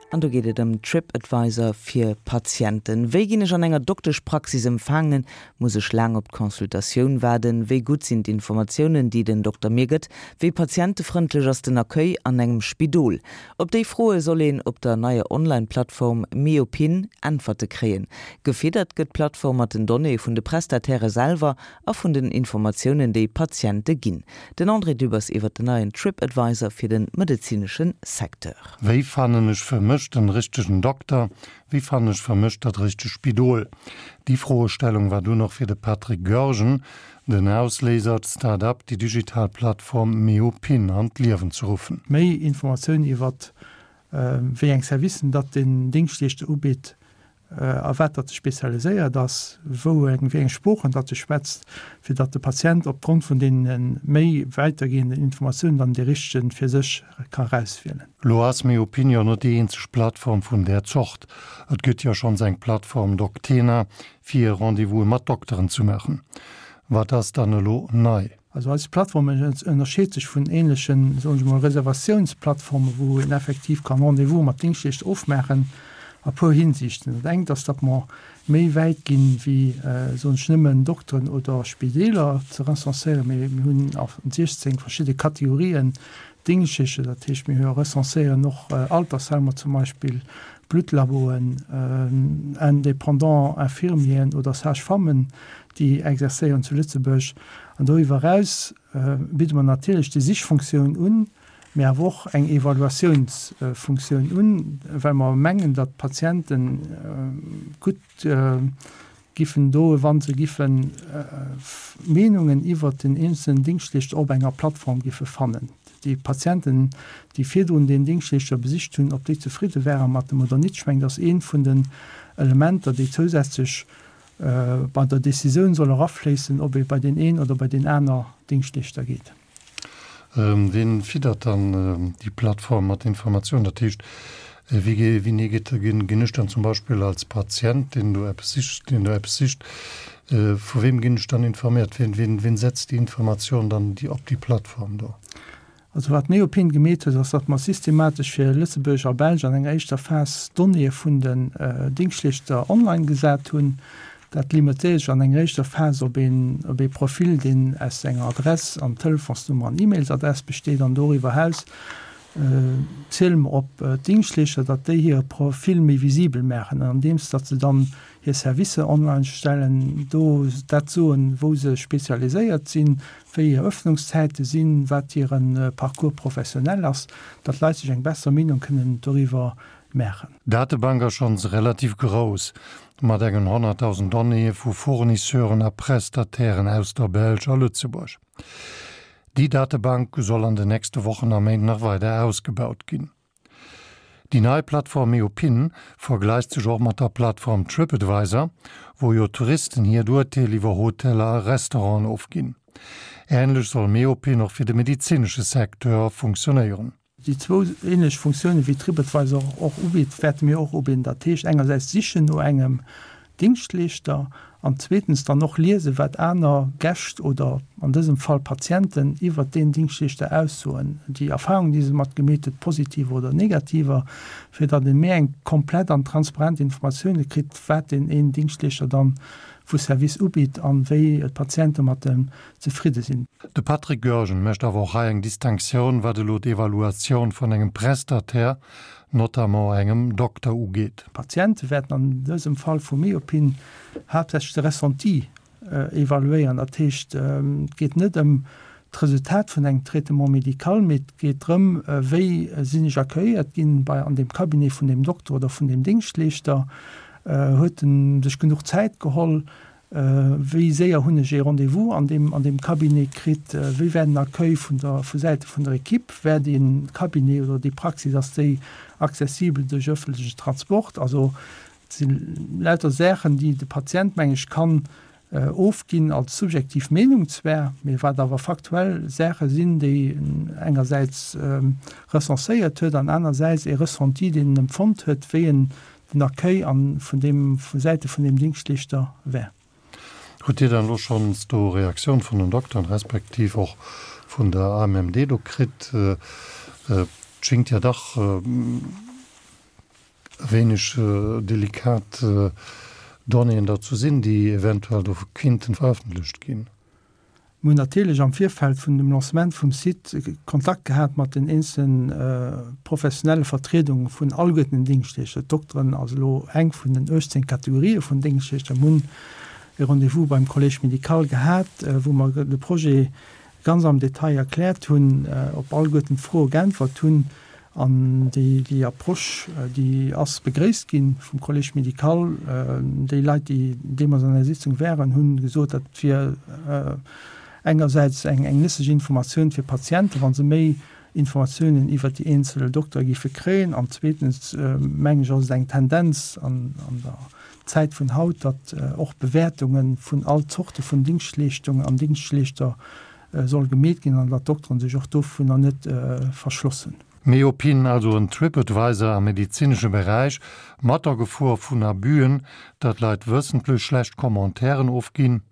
An do geet et ëm TripAdvisor fir Patienten. Wéi ginn ech an enger Dokteschpraxis empfaangen? Muss ech laang op d'Consultatioun waarden? Wéi gutt sinn d'Informatiounen, déi den Dokter mir gëtt? Wéi patientefrëndlech ass den Accueil an engem Spidol? Op déi Froe soll een op der neier Online-Plattform Meopin Äntwerte kréien. Gefiddert gëtt d'Plattform mat den Donnéeë vun de Prestatairë selwer a vun den Informatiounen, déi Patiente ginn. Den André Dübbers iwwer den neien TripAdvisor fir de medezinesche Secteur. Wéi fannen ech fir mech den richtegen Dokter? Wéi fannen ech fir mech dat richteg Spidol? Déi Froestellung war dunn och fir de Patrick Goergen den Ausléiser, d'Start-up, déi digital Plattform Meopin an d'Liewen ze ruffen. Méi Informatiounen iwwert wéi eng Servicen datt den Dingschtleeschter ubitt, a wat datt e spezialiséiert ass, wou eng, wéi eng Sproochen datt e schwätzt, fir datt de Patient opgrond vun deene méi wäitergehenden Informatiounen dann dee richtegen fir sech ka erauswielen. Lo ass Myopinion net déi eenzeg Plattform vun där Zort. Et gëtt jo schonns eng Plattform Doctena fir Rendez-vouse mat Dokteren ze maachen. Wat ass dann elo nei? Also eis Plattform ënnerscheet sech vun ähnlechen, soen ech emol, Reservatiounsplattformen, wou een effektiv kann Rendez-vous mat Dingschtleeschter ofmaachen, a puer Hinsichten. Dat engt ass, datt mer méi wäit ginn, wéi, soen ech, nëmmen Dokteren oder Spideeler ze recenséieren, mee mir hunn a 16 verschidde Kategorien Dingschtleeschter. Dat heescht, mir recenséieren och Altersheimer zum Beispill, Bluttlaboen, indépendant Infirmieren oder Sage-femmen, déi exerzéieren zu Lëtzebuerg. An doriwwer eraus bidde mer natierlech déi Sichfunktioun un, mee awer och eng Evaluatiounsfunktioun un, well mer mengen, datt d'Patiente gutt giffen doen, wa se giffe Meenungen iwwert den eenzelnen Dingschtleeschter op enger Plattform giffe fannen. Déi Patienten, déi virdrun deen Dingschtleeschter besicht hunn, ob déi zefridde ware mat em oder nit. Ech mengen, dat ass eent vun den Elementer, déi zousätzlech bei der Decisioun soll erafléissen, ob ee bei deen een oder bei deen aner Dingschtleeschter geet. Wien fiddert dann déi Plattform mat Informatiounen? Dat heescht, wéi wéini geet, ginn ech dann zum Beispill als Patient, deen do eppes sicht, deen do eppes sicht, vu weem ginn ech dann informéiert? Wien, wien, wien setzt déi Informatioun dann déi op déi Plattform do? Also wat d'Neopin gemeet huet, ass, datt mer systematesch fir Lëtzebuerg a Belsch an enger éischter Phas d'Donnéeë vun den Dingschtleeschter online gesat hunn. Dat limitéiert sech an enger éischter Phas op een op ee Profil, deen aus enger Adress an Telefonsnummer an E-Mailsadress besteet. An doriwwer eraus ziele mer op d'Dingschtleeschter, datt déi hire Profil méi visibel maachen, andeems datt se dann hir Servicer online stellen, do dat soen, wou se spezialiséiert sinn, wéi hir Öffnungszäite sinn, wat hire Parcours professionnel ass, datt d'Leit sech eng besser Meenung kënnen doriwwer maachen. D'Datebank ass schonns relativ grouss, mat engen 100.000 Donnéeë vu Fournisseuren a Prestatairen aus der Belsch a Lëtzebuerg. Déi Datebank soll an den nächste Wochen a Méint nach weider ausgebaut ginn. Déi nei Plattform Eopin vergläicht sech och mat der Plattform Tripadvisor, wou jo Touristen hiert Urteel iwwer Hoteller a Restauranten ofginn. Änlech soll Meopin och fir de medezinesche Secteur funktionéieren. Déi zwou änlech Funktiounen, wéi Tripadvisor och ubitt, wäerte mir och ubidden. Dat heescht engersäits sichen no engem Dingschtleeschter an zweetens dann och liesen, wat aner Gäscht oder an dësem Fall Patienten iwwert deen Dingschtleeschter aussoen, déi Erfahrungen, déi se mat gemeet huet, positiver oder negativer, fir datt ee méi eng komplett an transparent Informatioune kritt, wat deen een Dingschtleeschter dann vu Service ubitt an wéi d'Patiente mat em zefridde sinn. De Patrick Goergen mécht awer och hei eng Distinctioun, wat elo d'Evaluatioun vun engem Prestataire notamment engem Dokter ugeet. D'Patiente wäerten an dësem Fall vu Myopin haaptsächlech de Ressenti evaluéieren. Dat heescht, et geet net ëm d'Resultat vun engem Traitement médical, mee et geet drëm, wéi sinn ech accueilléiert ginn bei an deem Cabinet vun deem Dokter oder vun deem Dingschtleeschter, huet en sech genuch Zäit geholl, Wéi séier hunn ech ee Rendez-vous an deem an deem Cabinet kritt? Wéi war den Accueil vun der vu Säite vun der Equipe? War dee Cabinet oder déi Praxis, ass déi accessibel duerch ëffentlechen Transport? Also et si lauter Saachen, déi de Patient, meng ech, kann ofginn als subjektiv Meenung zwar, mee wat awer faktuell Saache sinn, déi en engersäits recenséiert huet an anersäits ee Ressenti, deen en empfonnt huet, wéi en den Accueil an vun deem, vu Säite vun deem Dingschtleeschter wär. Hutt Dir dann elo schonns do Reaktioun vun den Dokteren, respektiv och vun der AMMD do kritt? Et schéngt jo dach. Wéineg delikat Donnéeën dazu sinn, déi eventuell do kinnten verëffentlecht ginn. Mir hunn natierlech am Virfeld vun dem Lancement vum Site Kontakt gehat mat den eenzele professionelle Vertriedunge vun alleguerten den Dingschtleeschter. D'Dokteren ass elo eng vun den 18 Kategorië vun Dingschtleeschter. Mir hunn e Rendez-vous beim Collège médical gehat, wou mer de Projet ganz am Detail erkläert hunn, op alleguerten d'Froe geäntwert hunn. An déi Approche, déi ass begréisst gi vum Collège médical. Déi Leit, déi deemools an der Sitzung waren, hu gesot, dat wier engersäits eng nëtzlech Informatioun fir d'Patienten, wa se méi Informatiounen iwwert déi eenzel Doktere géife kréien. An zweetens, mengen ech, ass et eng Tendenz an der Zäit vun haut, datt och Bewäertunge vun all Zorte vun Dingschtleeschtungen an Dingschtleeschter soll gemeet ginn an datt d'Dokteren sech och dovunner net verschlossen. Meopin, also en Tripadvisor am medezinesche Beräich, mat der Gefor vun Abüen, datt Leit wëssentlech schlecht Commentairen ofginn.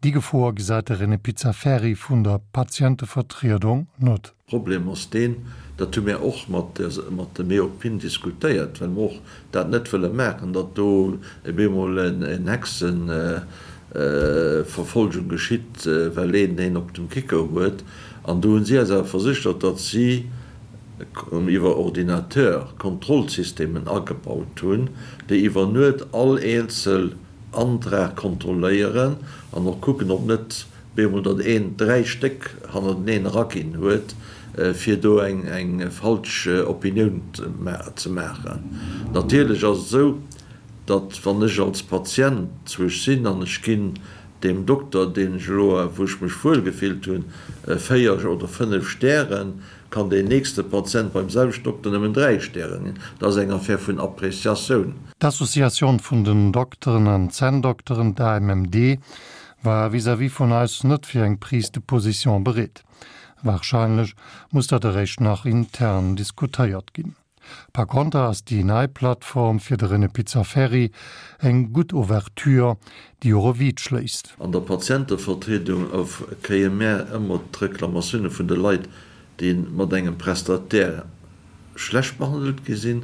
Déi Gefor gesäit de René Pizzaferri vun der Patientevertriedung net. Problem ass deen, dat hu mir och mat de Meopin diskutéiert, well mer och dat net wëlle maachen, datt do op eemol eng Hexenverfolgung geschitt, well een een op dem Kicker huet. An do hu si eis awer verséchert, datt si iwwer Ordinateur Kontrollsystemen agebaut hunn, déi iwwer Nuet all eenzel Antrag kontrolléieren an och kucken, ob net Bemol datt een 3 Stéck hannerteneen eraginn huet, fir do eng falsch Opinioun ze maachen. Natierlech ass et esou, datt wann ech als Patient zwuesch sinn an ech ginn deem Dokter, deen ech elo, wou ech mech wuel gefillt hunn, 4 oder 5 Stären, kann deen nächste Patient beim selwechten Dokter nëmmen 3 Stären ginn. Dat ass eng Affaire vun Appréciatioun. D'Associatioun vun den Dokteren an Zänndokteren, d'AMMD, war vis-à-vis vun eis net fir eng Prise de position bereet. Wahrscheinlech muss dat eréischt nach intern diskutéiert ginn. Par konter ass déi nei Plattform fir de René Pizzaferri eng gutt Ouverture, déi och e Vide schléisst. An der Patientevertriedung kréie mär ëmmer d'Reklamatioune vun de Leit, déi mat engem Prestataire schlecht behandelt gi sinn.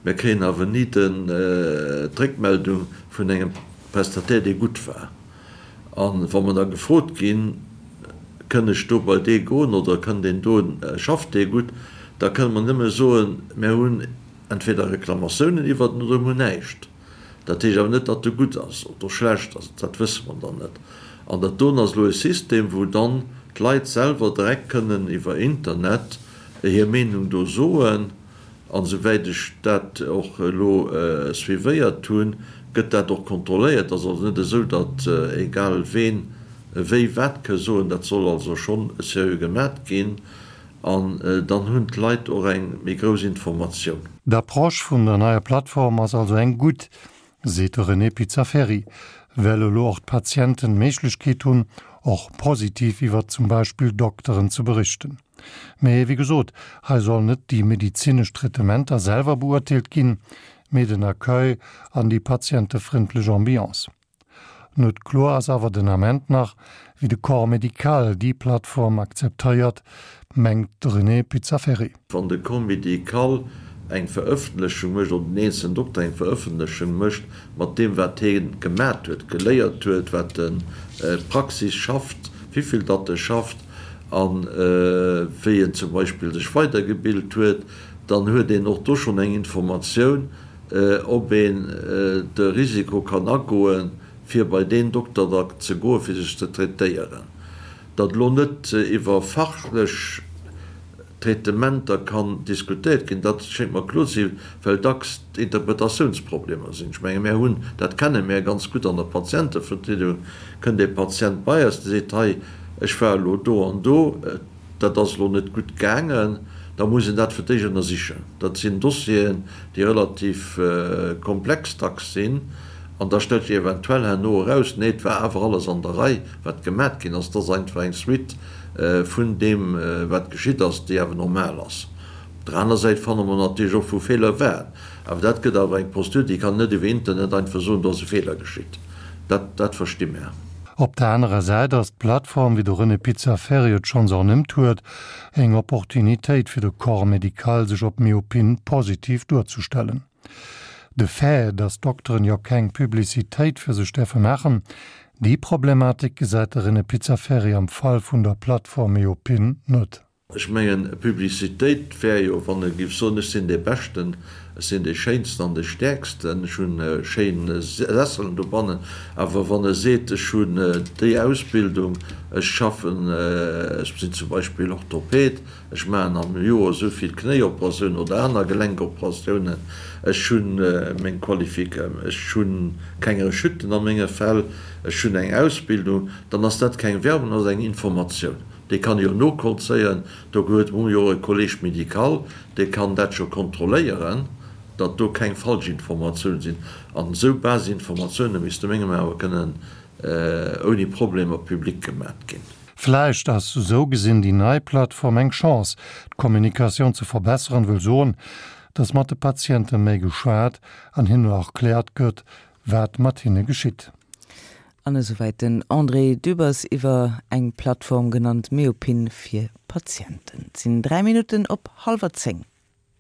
Mir kréien awer ni d'Réckmeldung vun engem Prestataire, dee gutt war. A wa mer da gefrot ginn, Kënn ech do bei dee goen oder kënn deen do, schafft dee gutt, da kënne mer nëmme soen, Mir hunn entweder Reklamatiounen iwwert en oder mir hunn näischt. Dat heescht awer net, datt e gutt ass oder schlecht ass, dat wësse mer dann net. An dat doen ass elo e System, wou dann d'Leit selwer direkt kënnen iwwer Internet hir Meenung do soen. An esouwäit ech dat och elo suivéiert hunn, gëtt dat och kontrolléiert. Et ass also net esou, datt egal ween wéi wat ke soen. Dat soll also schonn seriö gemat ginn. An dann hunn d'Leit och eng méi grouss Informatioun. D'Approche vun der neier Plattform ass also eng gutt, seet de René Pizzaferri, well elo och d'Patienten d'Méiglechkeet hunn, och positiv iwwer zum Beispill Dokteren ze berichten. Mee wéi gesot, hei sollen net déi medezinesch Traitementer selwer beurteelt ginn, mee den Accueil an déi patientefrëndlech Ambiance. Net kloer ass awer den Ament nach, wéi de Corps médical déi Plattform akzeptéiert, mengt de René Pizzaferri. Wann de Corps médical eng Verëffentlechung mécht, oder den eenzelen Dokter eng Verëffentlechung mécht mat deem wat hie gemat huet, geléiert huet, wat en d'Praxis schafft, wéivill datt e schafft a wéi en zum Beispill sech weidergebilt huet, dann huet een och do schonn eng Informatioun, ob een de Risiko kann agoen, fir bei deen Dokter da ze goen, fir sech ze traitéieren. Datt elo net iwwer fachlech Traitementer kann diskutéiert ginn, dat schéngt mer kloer ze sinn, well dacks d'Interpretatiounsproblemer sinn. Ech menge mär hunn, dat kenne mär ganz gutt an der Patientevertriedung, kënnt ee Patient bei eis, dee seet, hei, ech war elo do an do, dat ass elo net gutt gaangen, da muss een dat fir d'éischt ënnersichen. Dat sinn Dossieren, déi relativ komplex dacks sinn. An da stellt sech eventuell herno eraus, nee, et war awer alles an der Rei, wat gemat ginn ass. Et ass einfach eng Suite vun deem, wat geschitt ass, déi awer normal ass. Op der aner Säit fanne mer natierlech och, wou Feeler waren. Awer dat gëtt awer eng Prozedur, déi kann een net iwwer Internet einfach soen, do ass e Feeler geschitt. Dat, dat versti mär. Op der anerer Säit ass d'Plattform, wéi de René Pizzaferri et schonns ernimmt huet, eng Opportunitéit fir de Corps médical sech op Myopin positiv duerzestellen. De Fait, datt Dokteren jo keng Publicitéit fir sech däerfe maachen, déi Problematik gesäit de René Pizzaferri am Fall vun der Plattform Meopin net. Ech mengen, Publicitéit wär jo, wann e géif soen, ech sinn dee Beschten, ech sinn dee Schéinsten an dee Stäerksten, ech hunn schéin Sesselen dobannen. Awer wann e seet, ech hunn déi Ausbildung, ech schaffen, ech sinn zum Beispill Orthoped, ech maachen am Joer esou vill Knéioperatiounen oder aner Gelenkoperatiounen, ech hunn meng Qualifik, ech hu keng Rechuten a menge Fäll, ech hunn eng Ausbildung, dann ass dat keng Werbung, dat ass eng Informatioun. Dee kann jo novollzéien, do huet mer jo e Collège médical, dee kann dat scho kontrolléieren, datt do keng Falschinformatioune sinn. An esou Basisinformatioune misste mengem awer kënnen ouni Problemer public gemat ginn. Vläicht ass esou gesinn déi nei Plattform eng Chance, d'Kommunikatioun ze verbesseren, wëll soen, datt mat de Patiente méi geschwat an hinnen erkläert gëtt, wat mat hinne geschitt. An esouwäit den André Dübbers iwwer eng Plattform genannt Meopin fir Patienten. Et sinn 3 Minutten op hallwer 10.